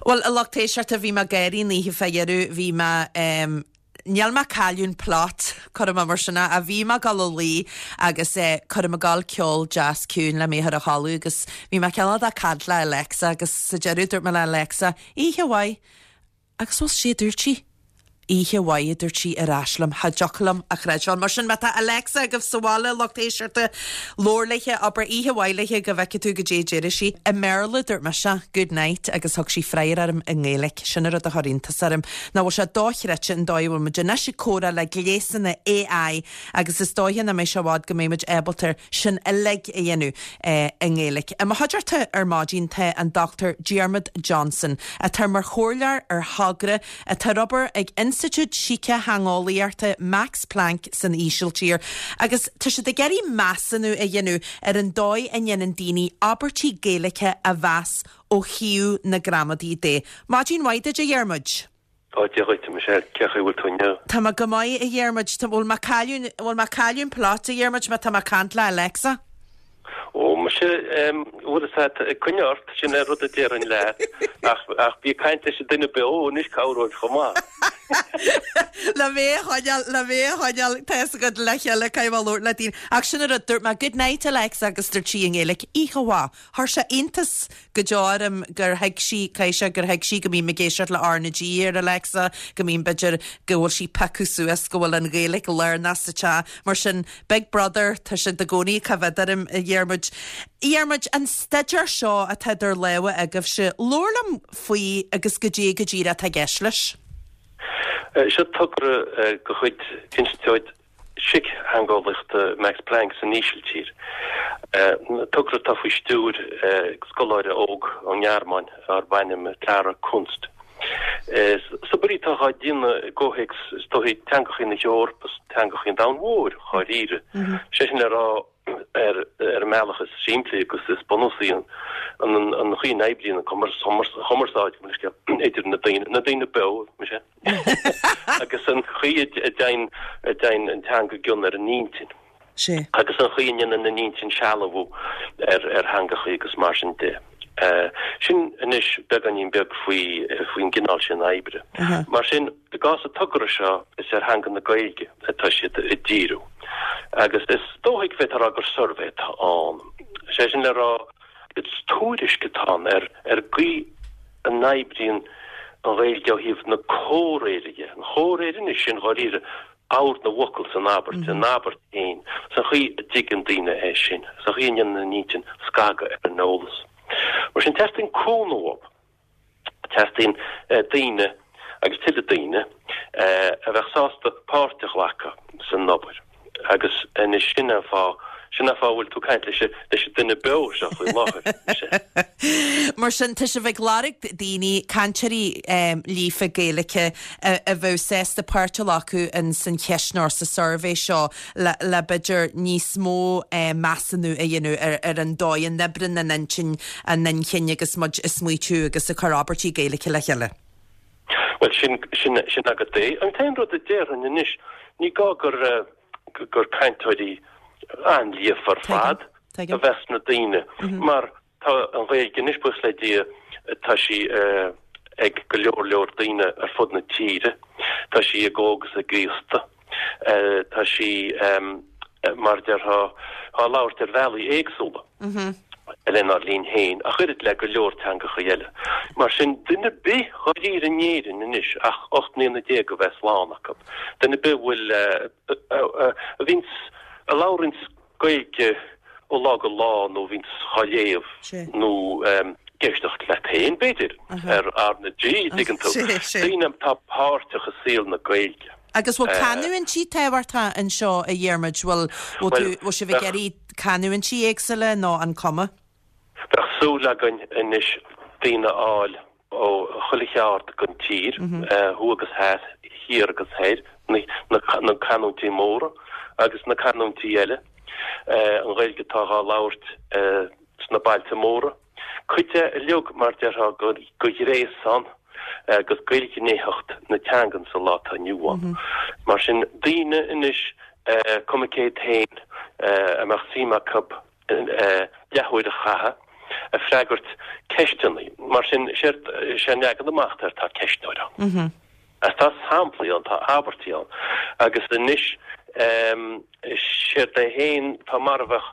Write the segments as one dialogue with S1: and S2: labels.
S1: Bhuel, a lucht éisteachta, bhí mé ag gáirí an oíche fá dheireadh, bhí mé, em, níl mé ag cailleadh an plot, cuirfidh mé mar sin é, ach bhí mé ag dul a luí agus eh, cuirfidh mé ag dul ceol deas ciúin le mé a chur a chodladh agus bhí mé cineál de ag caint le Alexa agus sa deireadh dúirt mé le Alexa, oíche mhaith. Agus bhuel, sé a dúirt sí. Oíche mhaith, a dúirt sí ar ais liom. Cha dtiocfadh liom a chreidbheáil. Mar sin, má tá Alexa agaibh sa bhaile, lucht éisteachta, labhair léithe, abair oíche mhaith léithe go bhfeicfidh tú goidé a déarfaidh sí. I mBéarla, dúirt mise, good night, agus thug sí freagra orm i nGaeilge. Sin an rud a chuir iontas orm. Nach bhfuil sé dochreidte an dóigh a bhfuil muid anois ag comhrá le gléasanna AI agus is dóiche nach mbeidh sé i bhfad go mbeidh muid ábalta sin uilig a dhéanamh i nGaeilge. I mo chuideachta ar maidin tá an Dr Diarmuid Johnson, atá mar chomhairleoir ar thogra atá ar obair ag Institiúid Sícitheangeolaíochta Max Planck san Ísiltír agus tá siad ag iarraidh measúnú a dhéanamh ar an dóigh a ndéanann daoine abairtí Gaeilge a mheas ó thaobh na gramadaí de. Maidin mhaith duit, a Dhiarmuid.
S2: Ó, Dia dhuit, a Michelle, cén chaoi a bhfuil tú inniu?
S1: Tá mé go maith, a Dhiarmuid. Tá, bhfuil mé ag cailleadh, bhfuil mé ag cailleadh an plot, a Dhiarmuid, má tá mé ag caint le Alexa?
S2: Ó, muise, em, bhfuil fhios agat, coinnigh ort, sin é rud a déarfainn leat, ach, ach bí ag caint leis an duine beo anois, cabhróidh chomh maith.
S1: Le mé a choinneáil, le mé a choinneáil, tá fhios agat, le chéile, caithfidh mé labhairt le daoine. Ach sin an rud, dúirt mé, good night, Alexa, agus dúirt sí i nGaeilge, oíche mhaith. Chuir sé iontas go deo orm gur thuig sí, caithfidh sé gur thuig sí go mbím ag éisteacht le R na G ar Alexa, go mbím, b'fhéidir, go bhfuil sí piocadh suas go bhfuil an Ghaeilge lárnach sa teach. Mar sin, Big Brother, tá siad i gcónaí ag coimhéad orm, a Dhiarmuid. A Dhiarmuid, an staidéar seo atá idir lámha agaibhse, labhair liom faoi agus goidé go díreach atá i gceist leis.
S2: Seo togra de chuid Institiúid Síctheangeolaíochta Max Planck san Ísiltír. Togra atá faoi stiúir scoláire óg ón nGearmáin darb ainm Clara Kunst. Is obair í atá á déanamh i gcomhthéacs, is dóichí, teangachaí na hEorpa is teangachaí an domhain mhóir, dháiríre. Sé sin le rá, ar an mbealach is simplí agus is bunúsaí, an chaoi a n-oibríonn an chumarsáid idir na daoine, na daoine beo, muise. agus an chaoi a dtéann a dtéann an teanga i gcion ar an intinn.
S1: Sea.
S2: Agus an chaoi a ndéanann an intinn sealbhú ar ar theangachaí agus mar sin de. Sin anois beagáinín beag faoi faoin gcineál sin oibre. Mar sin, i gcás an togra seo, is ar theanga na Gaeilge atá siad ag díriú. Agus is dóichí go bhféadfá a rá gur suirbhé atá ann. Sé sin le rá, Is tuairisc atá ann ar ar an gcaoi a n-oibríonn an Ghaeilge ó thaobh na comhréire dhe. An chomhréir anois, sin dháiríre ord na bhfocal san abairt, an abairt féin, is an chaoi a dtuigeann daoine é sin, is an chaoi a ndéanann an intinn scagadh ar an eolas. Mar sin, teastaíonn cúnamh uathu. Teastaíonn daoine, agus tuilleadh daoine, a bheadh sásta páirt a ghlacadh san obair. Agus anois sin an fáth, sin an fáth a bhfuil tú ag caint leis an, leis an duine beo seo faoi láthair,
S1: muise. Mar sin, tá sibh ag lorg daoine, cainteoirí líofa Gaeilge a bheadh sásta páirt a ghlacadh in san cheistneoir, sa suirbhé seo. le le b'fhéidir níos mó measúnú a dhéanamh ar ar an dóigh a n-oibríonn an intinn, an inchinn agus muid ag smaoitiú agus ag cur abairtí Gaeilge le chéile.
S2: Bhuel, sin, sin, sin agat é. An t-aon rud a déarfainn anois, ní gá gur, gur cainteoirí an-líofa ar fad a bheas sna daoine, mar Tá an Ghaeilge anois, buíochas le Dia, tá sí ag go leor leor daoine ar fud na tíre. Tá sí ag óg is ag aosta. Tá sí, mar a déarfá, á labhairt ar bhealaí éagsúla lenár linn féin, ach oiread le go leor teangacha eile. Mar sin, duine ar bith dháiríre in Éirinn anois ach 18 mbliana a bheith slán acu, duine ar bith a bhfuil, a bhíonns, a labhraíonns Gaeilge ó lá go lá nó bhíonns á léamh nó ag éisteacht leat féin, b'fhéidir, ar R na G, dtuigeann tú. Daoine atá páirteach i saol na Gaeilge.
S1: Agus bhfuil canúintí tábhachtach anseo, a Dhiarmuid? Bhfuil, bhfuil tú, bhfuil sibh ag iarraidh canúintí éagsúla nó an cuma?
S2: Bheadh súil againn anois daoine a fháil ó chuile cheard den tír, thuaidh agus theas, thiar agus thoir, na canúintí móra agus na canúintí eile, an Ghaeilge atá á labhairt sna bailte móra. Cuid de uilig, mar déarfá, de ghréasán agus dh'ilghnéitheacht na teangan sa lá atá inniu ann. Mar sin, daoine anois, cuma cé hiad féin, a mbeadh suim acu leathuair a chaitheamh. ag freagairt ceisteanna. Mar sin, séard, sé an leagan amach atá air, tá ceistneoir ann. Agus tá samplaí ann, tá abairtí ann. Agus anois, séard é féin, tá mar a bheadh,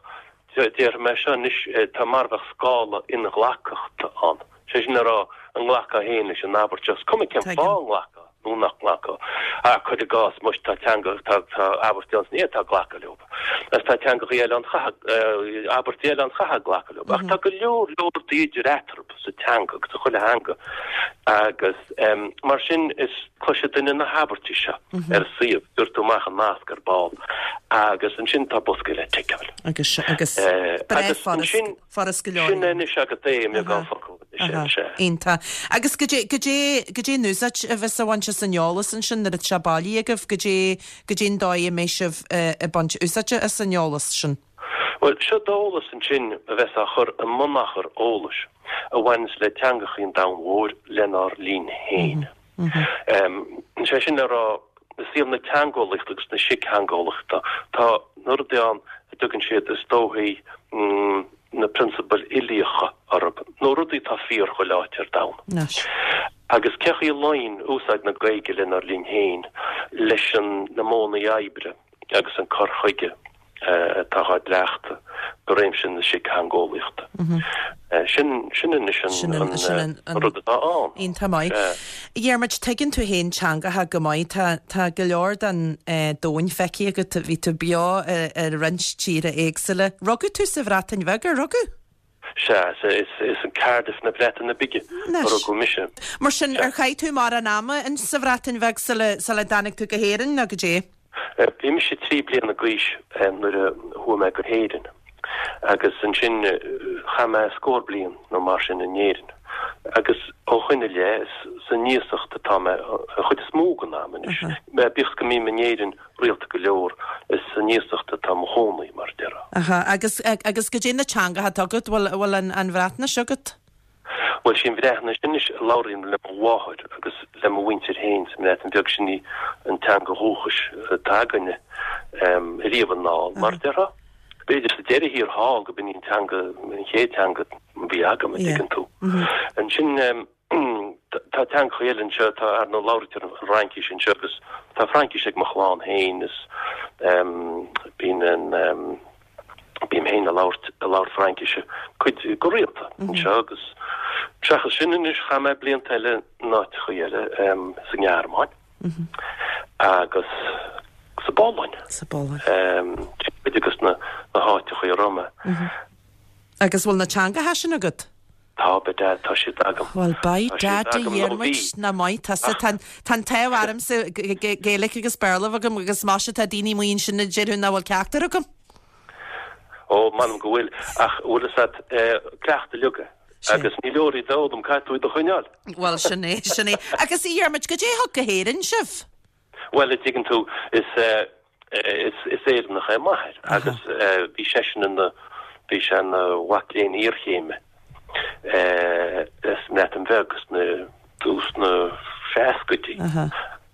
S2: déarfaidh mé seo anois, tá mar a bheadh scála inghlacthachta ann. Sé sin le rá, an nglacfá féin leis an abairt seo, is cuma cén fáth an nglacfá nó nach nglacfá. Ach cuir i gcás, muis, tá teanga, tá, tá abairtí ann is ní fhéadfá glacadh leo. Agus tá teangachaí eile ann, chaithfeá, abairtí eile ann, chaithfeá glacadh leo. Ach tá go leor, leor rudaí idir eatarthu sa teanga agus sa chuile theanga. Agus mar sin, is cloisfidh duine na habairtí seo ar an suíomh, gheobhaidh tú amach an nasc ar ball, agus ansin tá bosca le ticeáil.
S1: Agus, agus, breá furast. Furast go leor.
S2: Sin anois agat é i mbeagán focal.
S1: Sea. Iontach. Agus goidé, goidé, goidé an úsáid a bheas á bhaint as an eolas ansin nuair atá sé bailithe agaibh? Goidé, goidé an dóigh a mbeidh sibh ag baint úsáide as an eolas sin?
S2: Bhuel, seo d'eolas ansin a bheas á chur i mbunachar eolais a bhaineas le teangachaí an domhain mhóir lenár linn féin. Sé sin le rá, i saol na teangeolaíochta agus na síctheangeolaíochta, tá na rudaí ann a dtugann siad, is dóichí, na prionsabail uilíocha orthu, nó rudaí atá fíor chuile áit ar domhan. Agus cé chaoi a luíonn úsáid na Gaeilge lenár linn féin leis an na modhanna oibre agus an cur chuige atá á gcleachtadh i réimse na síctheangeolaíochta. Sin, sin anois an rud atá ann.
S1: Iontach maith. A Dhiarmuid, tuigeann tú féin teangacha go maith. Tá, tá go leor den domhan feicthe agat. Bhí tú beo i roinnt tíortha éagsúla. Rugadh tú sa Bhreatain Bheag, ar rugadh?
S2: Sea, is in Cardiff na Breataine Bige a rugadh mise.
S1: Mar sin, ar chaith tú mórán ama sa Bhreatain Bheag sula dtáinig tú go hÉirinn, nó goidé?
S2: Bhí mise 3 bliana d'aois nuair a chuaigh mé go hÉirinn agus ansin chaith mé scór bliain nó mar sin in Éirinn. Agus ó shoin i leith, is san iasacht atá mé an chuid is mó den am anois. Bíodh is go mbím in Éirinn rialta go leor, is san iasacht atá mo chónaí, mar a déarfá.
S1: Aha, agus, agus goidé na teangacha atá agat, bhfuil, bhfuil an, an Bhreatnais agat?
S2: Bhuel, sí an Bhreatnais anois a labhraím le mo mháthair agus le mo mhuintir féin sa mBreatain Bheag, sin í an teanga dhúchais atá againne, ariamh anall, mar a déarfá. B'fhéidir sa deireadh thiar thall go b'in í an teanga, an chéad teanga a bhí agam, an dtuigeann tú. Ansin, tá teangacha eile anseo, tá, ar ndóigh, labhraítear an Fhraincis anseo agus tá Fraincis ag mo chlann féin is bíonn an, bím féin ag labhairt, ag labhairt Fraincise cuid, go rialta anseo agus seachas sin anois chaith mé blianta eile in áiteachaí eile, sa nGearmáin agus sa bPolainn.
S1: Sa bPolainn.
S2: Cuid de na háiteachaí a raibh mé.
S1: Agus bhfuil na teangacha sin agat?
S2: Tá, by dad, tá siad agam.
S1: Bhuel, by dad a Dhiarmuid, nach maith tusa. Tá an t-ádh ormsa Gaeilge agus Béarla a bheith agam agus maise tá daoine amuigh ansin a déarfadh nach bhfuil ceachtar agam.
S2: Ó, m'anam go bhfuil, ach bhfuil fhios a't, cleachtadh uilig é. Agus ní leor iad a fhoghlaim, caithfidh tú iad a choinneáil.
S1: Bhuel, sin é, sin é. Agus a Dhiarmuid, goidé a thug go hÉirinn sibh?
S2: Bhuel, a dtuigeann tú, is is Éireannach é m'athair agus bhí seisean ina, bhí sé ina mhac léinn iarchéime sa mBreatain Bheag sna tús na seascaidí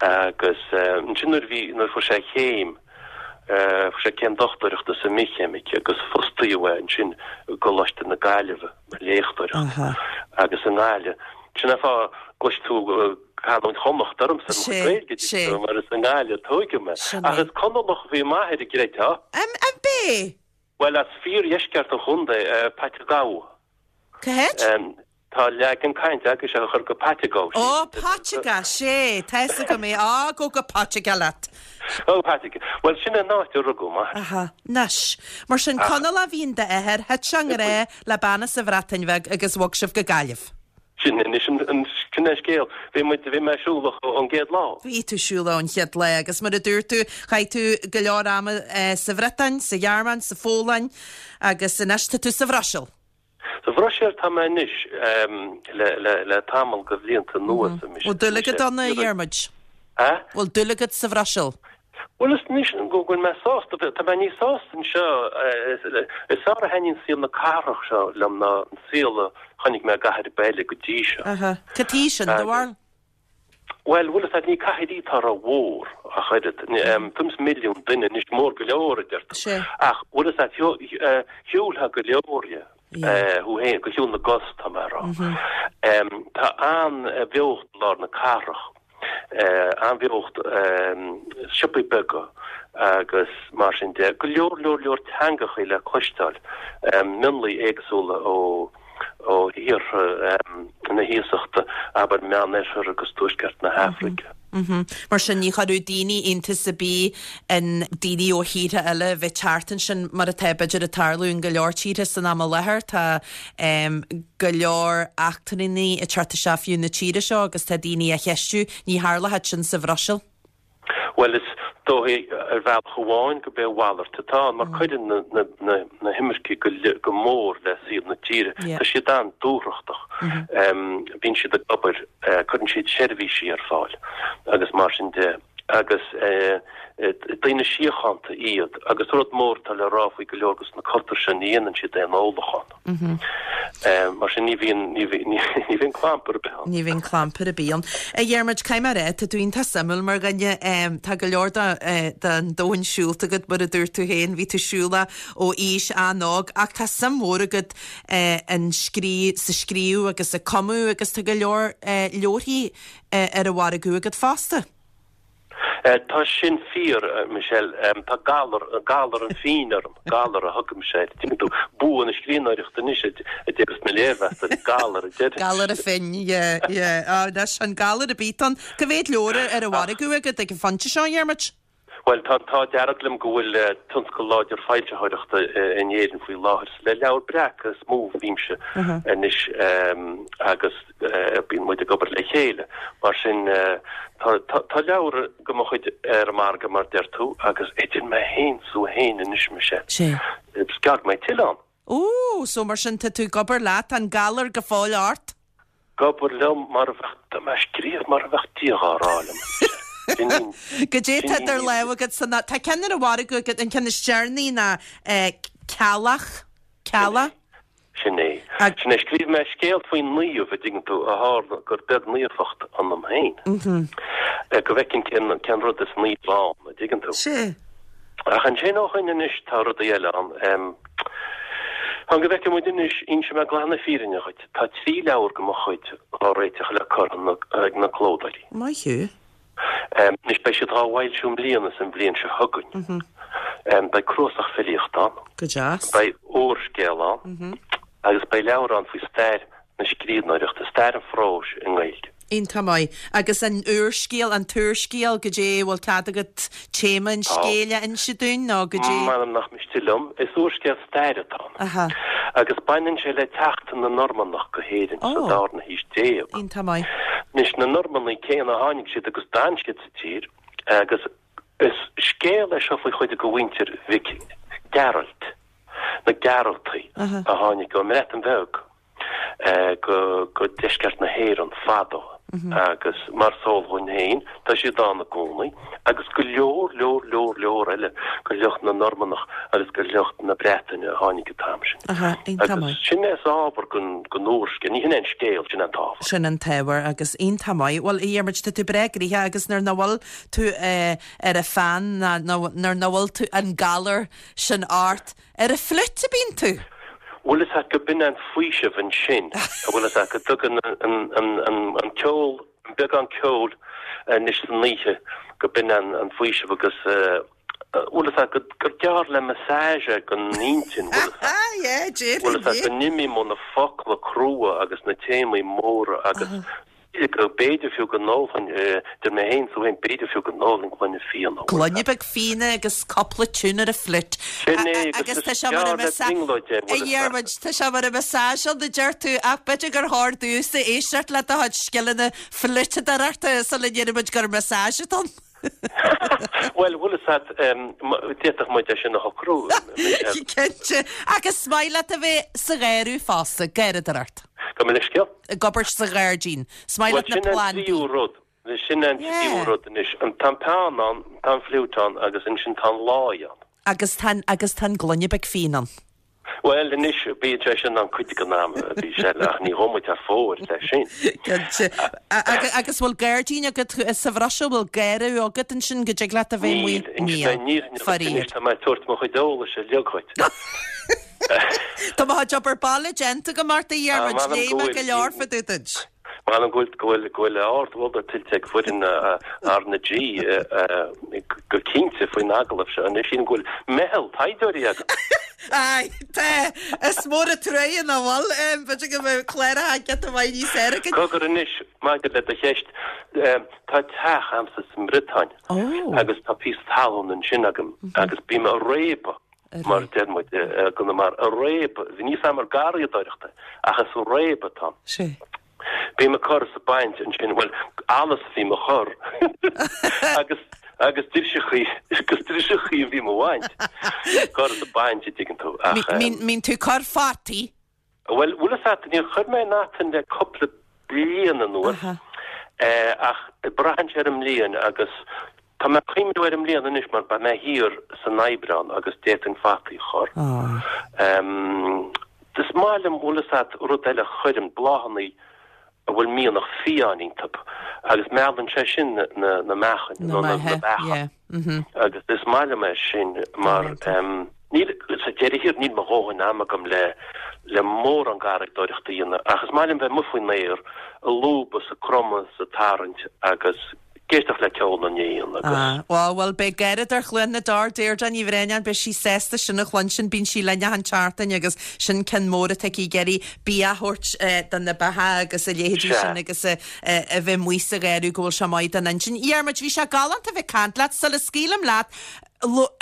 S2: agus ansin nuair a bhí, nuair a fuair sé a chéim, fuair sé céim dochtúireachta sa mbithcheimic agus fostaíodh é ansin i gColáiste na Gaillimhe mar léachtóir agus i nGaillimh. Sin an fáth go gcloisfidh tú canúint Chonnacht ormsa i mo chuid Gaeilge,
S1: Sé.
S2: mar is i nGaillimh a tóigeadh mé.
S1: Sin
S2: Ach
S1: é.
S2: is Conallach a bhí m'athair, an gcreidfeá.
S1: An b'é?
S2: Bhuel, as fíordheisceart an chontae, Paiteagó.
S1: Cá háit?
S2: Tá leagan cainte agaibhse a chur go Paiteagó.
S1: Ó, Paiteagó, sé, tá fhios agam é. Á, gabh go Paiteagó leat.
S2: Ó, Paiteagó. Bhuel, sin an áit a rugadh m'athair.
S1: Aha, anois. Mar sin, Conallach a bhí in d'athair, thit sé i ngrá le bean as an Bhreatain Bheag agus bhog sibh go Gaillimh.
S2: Sin anois an, sin an scéal. Bhí muid, bhí mé siúlach ón gcéad lá.
S1: Bhí tú siúlach ón chéad lá agus mar a dúirt tú, chaith tú go leor ama sa Bhriotáin, sa Ghearmáin, sa Pholainn agus anois tá tú sa Bhruiséil.
S2: Sa Bhruiséil tá mé anois le, le, le tamall de bhlianta anuas.
S1: Bhfuil dúil agat ann, a Dhiarmuid?
S2: A?
S1: Bhfuil dúil agat sa Bhruiséil?
S2: Bhuel, is anois go bhfuil mé sásta, tá mé níos sásta anseo, is fearr a thaitníonn saol na cathrach seo liom ná an saol a chonaic mé i gcathair ar bith eile go dtí seo.
S1: Aha. Cad chuige sin, do bharúil?
S2: Bhuel, bhfuil fhios agat, ní cathair í atá rómhór ach oiread. Tuairim is milliún duine anois, mór go leor, a deir tú.
S1: Sea.
S2: Ach bhfuil fhios agat, shiúlfá go leor dhe. Thú féin, go shiúl na gcos, tá mé a rá. Tá an-bheocht i lár na cathrach, an-bheocht, siopaí beaga agus mar sin de. Go leor, leor, leor teangachaí le cloisteáil, mionlaigh éagsúla ó ó thíortha na hiasachta, abair Meánoirthear agus Tuaisceart na hAfraice.
S1: Mar sin, ní chuirfeadh daoine iontas ar bith in daoine ó thíortha eile a bheith teacht ansin, mar atá, b'fhéidir, ag tarlú in go leor tíortha san am i láthair. Tá go leor eachtrannaigh ag teacht isteach fiú na tíre seo agus tá daoine á cheistiú. Ní tharlódh sin sa Bhruiséil.
S2: Bhuel, is dóigh ar bhealach amháin gurb é a mhalairt atá ann, mar cuireann na himircigh go mór le saol na tíre. Tá siad an-dúthrachtach. Bíonn siad ag obair, cuireann siad seirbhísí ar fáil agus mar sin de. Agus daoine síochánta iad. Agus rud mór atá le rá faoi go leor de na cultúir seo, ní dhéanann siad aon ólachán. Mar sin ní bhíonn, ní bhíonn clampar ar bith ann.
S1: Ní bhíonn clampar ar bith ann. A Dhiarmuid, caithfidh mé a rá, tá tú iontach suimiúil mar dhuine. Tá go leor den domhan siúlta agat, mar a dúirt tú féin, bhí tú siúlach ó aois an-óg, ach tá suim mhór agat in scrí, sa scríobh agus ag cumadh agus tá go leor leabharthaí ar an mhargadh agat fosta.
S2: Tá sin fíor, Michelle. Tá galar, galar an phinn orm, galar a thugaimse air. Tuigeann tú, bua na scríbhneoireachta anois a déarfas na léirmheastóirí, galar a
S1: déarfas. Galar an phinn, yeah, yeah. Ah, anois, an galar ar bith ann. Cá mhéad leabhar ar an mhargadh agat ag an phointe seo, a Dhiarmuid?
S2: Bhuel, tá an t-ádh dearg liom go bhfuil tionscal láidir foilsitheoireachta in Éirinn faoi láthair. Is le Leabhar Breac is mó a bhímse anois agus bíonn muid ag obair le chéile. Mar sin, tá leabhar de mo chuid ar an margadh, mar deir tú, agus idir mé féin 's thú féin anois, Michelle, is gearr go mbeidh tuilleadh ann.
S1: Ó, so mar sin tá tú ag obair leat, tá an galar go fóill ort?
S2: Ag obair liom mar a bheadh, tá mé ag scríobh mar a bheadh Dia dhá rá liom. Sin í,
S1: Goidé tá idir lámha agat san, tá ceann ar an mhargadh agat, an ceann is deireanaí ná Ceallach, Cealla?
S2: Sin é. Sin é. Scríobh mé scéal faoi naomh, a dtuigeann tú, a tharla gur beag naofacht ionam féin. Go bhfeicfinn cén, cén rud is naomh ann, a dtuigeann tú.
S1: Sea.
S2: Ach ansin ó shoin anois tá rudaí eile ann. Fan go bhfeicfidh muid anois, inseoidh mé glan na fírinne dhuit, tá 3 leabhar de mo chuid á réiteach le cur ag na clódóirí.
S1: Maith thú.
S2: Anois beidh siad dhá bhfoilsiú i mbliana is an bhliain seo chugainn. Beidh cnuasach filíochta ann.
S1: Go deas.
S2: Beidh úrscéal ann agus beidh leabhar ann faoi stair na scríbhneoireachta, stair an phróis i nGaeilge.
S1: Iontach maith. Agus an úrscéal, an t-úrscéal, goidé, bhfuil cead agat téama an scéil a inse dúinn nó goidé?
S2: M'anam nach miste liom. Is úrscéal staire atá ann. Aha. Agus baineann sé le teacht na Normannach go hÉirinn sa Ó. darna haois déag.
S1: Iontach maith.
S2: Anois, na Normannaigh céanna, tháinig siad agus d'fhan siad sa tír agus is scéal é seo faoi chuid de mhuintir Mhic Gearailt, na Gearaltaigh, a tháinig ón mBreatain Bheag go deisceart na hÉireann fadó agus mar is eol dhúinn féin, tá siad ann i gcónaí agus go leor, leor, leor, leor eile de shliocht na Normannach agus de shliocht na Breataine a tháinig an t-am sin. Agus sin é is ábhar don úrscéal, ní hin é an scéal, sin é an t-ábhar.
S1: Sin an t-ábhar agus iontach maith. Bhuel, a Dhiarmuid, tá tú breá gnoitheach agus nuair nach bhfuil tú ar an pheann ná nuair nach bhfuil tú an galar sin ort, Ar an fliúit a bíonn tú?
S2: Bhfuil fhios a't go b'in an faoiseamh ansin, bhfuil fhios a't go dtugann an ceol, an beagán ceoil anois san oíche, go b'in an faoiseamh agus bhfuil fhios a't gur gearr le massage é don intinn, bhfuil fhios a't, bhfuil fhios a't go n-imím ó na focla crua agus na téamaí móra agus go b'fhéidir fiú go n-ólfainn, idir mé féin 's tú féin, b'fhéidir fiú go n-ólfainn gloine fíona.
S1: Gloine beag fíona agus cúpla tune ar an fliúit.
S2: Sin é, agus is gearr le brionglóid é,
S1: bhfuil fhios a't. Tá sé mar massage ann, a deir tú, ach b'fhéidir gur chóir domhsa éisteacht le do chuid scileanna fliúiteadóireachta sula ndéarfaidh muid gur massage atá ann.
S2: Bhuel, bhfuil fhios a't, d'fhéadfadh muid é sin a shocrú,
S1: Michelle. Cinnte. Agus is maith leat a bheith sa gharradh fosta, garradóireacht.
S2: Gabh mo leithscéal?
S1: Ag obair sa ghairdín. Is maith leat na
S2: plandaí. Bhuel, sin an tríú rud. Sin an tríú rud anois. Tá an peann ann, tá an fliúit ann agus ansin tá an láí ann.
S1: Agus tá an, agus tá an gloine beag fíon ann.
S2: Bhuel, anois, bíonn sé sin ann cuid den am, a Mhichelle, ach ní ghabhfaidh muid thar fóir leis sin.
S1: Cinnte. Agus bhfuil gairdín agat sa Bhruiséil? Bhfuil garradh agat ansin go dtig leat a bheith amuigh?
S2: Níl. Níl. Faraor. Anois tá mé ag tabhairt mo chuid eolais uilig dhuit.
S1: Tá mo chuid obair baile déanta agam ort, a Dhiarmuid, léigh mé go leor fá dtaobh duit.
S2: M'anam go bhfuil, go bhfuil, go bhfuil ardmholadh tuillte ag foireann R na G go cinnte faoin agallamh seo. Anois sílim go bhfuil meitheal taighdeoirí
S1: agat. Aye, tá. Is mór an truaighe nach bhfuil. B'fhéidir go mbeadh cláracha giota maith níos fearr againn.
S2: Cogar anois, maidir le do cheist, tá teach a'msa sa mBriotáin agus tá píosa talún ansin agam agus bím a' réabadh mar a deir muid i gConamara, a' réabadh, níl 's a'm ar garraíodóireacht é, ach is a' réabadh atá ann. Bím ag cur is ag baint ansin, bhuel, allas a bhím a chur agus, agus driseachaí, agus driseachaí a bhím a bhaint, cur is ag baint, a dtuigeann tú,
S1: ach. Mbíonn tú ag cur fataí?
S2: Bhuel, bhfuil fhios a't, níor chuir mé aon fhata le cupla bliain anuas, ach braitheann sé ar an mbliain agus tá mé ag cuimhniú ar an mbliain anois mar beidh mé thiar san Aibreán agus d'fhéadfainn fataí a chur. Is maith liom, bhfuil fhios a't, rud eile a chuirim, bláthannaí a bhfuil mianach fiáin iontub agus meallann sé sin na meachain nó na beacha agus is maith liom é sin mar níl, sa deireadh thiar níl mo dhóthain ama agam le le mórán garraíodóireachta a dhéanamh ach is maith liom bheith amuigh faoin aer ag lúbadh 's ag cromadh 's ag tarraingt agus ag éisteacht le ceol na n-éan agus.
S1: Ah, bhuel, bhuel, beidh gáire ar Chluain na dTor, Deirdre Ní Bhraonáin, beidh sí sásta sin a chluinstin, bíonn sí linn achan tseachtain agus sin ceann mór atá aici ag iarraidh bia a thabhairt do na beacha agus a leithéidí sin agus a bheith amuigh sa gharradh go bhfuil sé maith don intinn. Dhiarmuid, bhí sé galánta a bheith ag caint leat, sula scaoilim leat,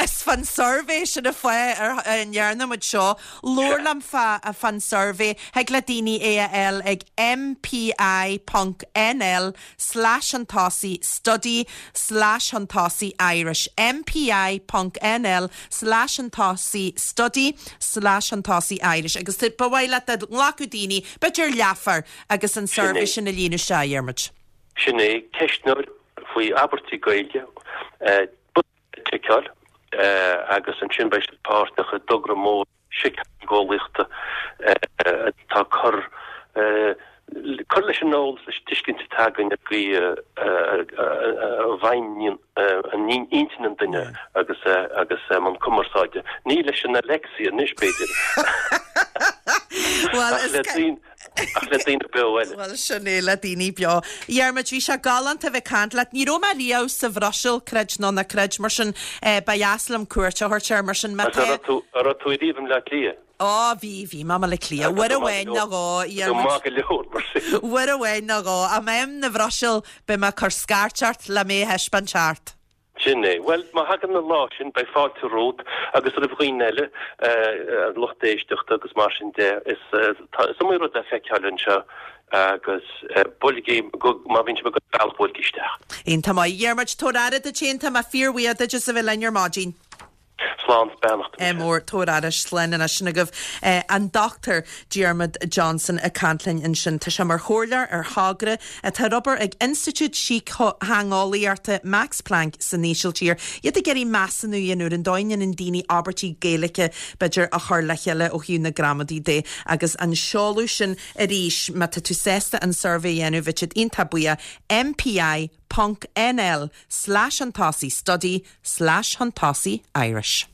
S1: is fán suirbhé sin an fáth a ndearna muid seo, labhair liom fán suirbhé, thig le daoine é a fháil ag mpi ponc nl slash chun tosaigh study slash chun tosaigh Irish mpi ponc nl slash chun tosaigh study slash chun tosaigh Irish agus ba mhaith leat dá nglacfadh daoine, b'fhéidir leathuair agus an suirbhé sin a líonadh isteach, a Dhiarmuid.
S2: Sin é, ceistneoir faoi abairtí Gaeilge, bosca le ticeáil agus ansin beidh siad páirteach i dtogra mór síceolaíochta atá ag cur cur leis an eolas, leis an tuiscint atá againn ar an gcaoi a bhfeidhmíonn intinn an duine agus agus i mbun cumarsáide. Ní leis an Alexia anois, b'fhéidir, ach le daoine Ach le daoine beo eile.
S1: Bhuel, sin é, le daoine beo. A Dhiarmuid, bhí sé galánta a bheith ag caint leat. Ní raibh mé riamh sa Bhruiséil, creid nó ná creid, mar sin ba dheas liom cuairt a thabhairt air, mar sin má tá.
S2: An raibh tú, an raibh tú ariamh i mBleá Cliath?
S1: Ó, bhí, bhí mé i mBaile Átha Cliath. Uair amháin nó dhó, a Dhiarmuid.
S2: Tá tú maith go leor, mar
S1: sin. Uair amháin nó dhó. Ach má bhím na Bhruiséil, beidh mé ag cur scairt ort le mé a thaispeáint thart.
S2: Sin é. Bhuel, má thagann an lá sin, beidh fáilte romhat agus roimh dhaoine eile, an lucht éisteachta agus mar sin de. Is, tá, is iomaí rud le feiceáil anseo agus buailigí, má bhíonn sibh ag dul an bealach, buailigí isteach.
S1: Iontach maith. A Dhiarmuid, tabhair aire duit féin, tá mé fíorbhuíoch duit as a bheith linn ar maidin.
S2: Slán 's beannacht.
S1: Ádh mór, tabhair aire, slán anois. Sin agaibh an Dr Diarmuid Johnson ag caint linn ansin. Tá sé mar chomhairleoir ar thogra atá ar obair ag Institiúid Síctheangeolaíochta Max Planck san Ísiltír. Iad ag iarraidh measúnú a dhéanamh ar an dóigh a ndéanann daoine abairtí Gaeilge, b'fhéidir, a chur le chéile ó thaobh na gramadaí de. Agus an seoladh sin arís, má tá tú sásta an suirbhé a dhéanamh, bheadh siad iontach buíoch, MPI ponc NL slash chun tosaigh study slash chun tosaigh Irish.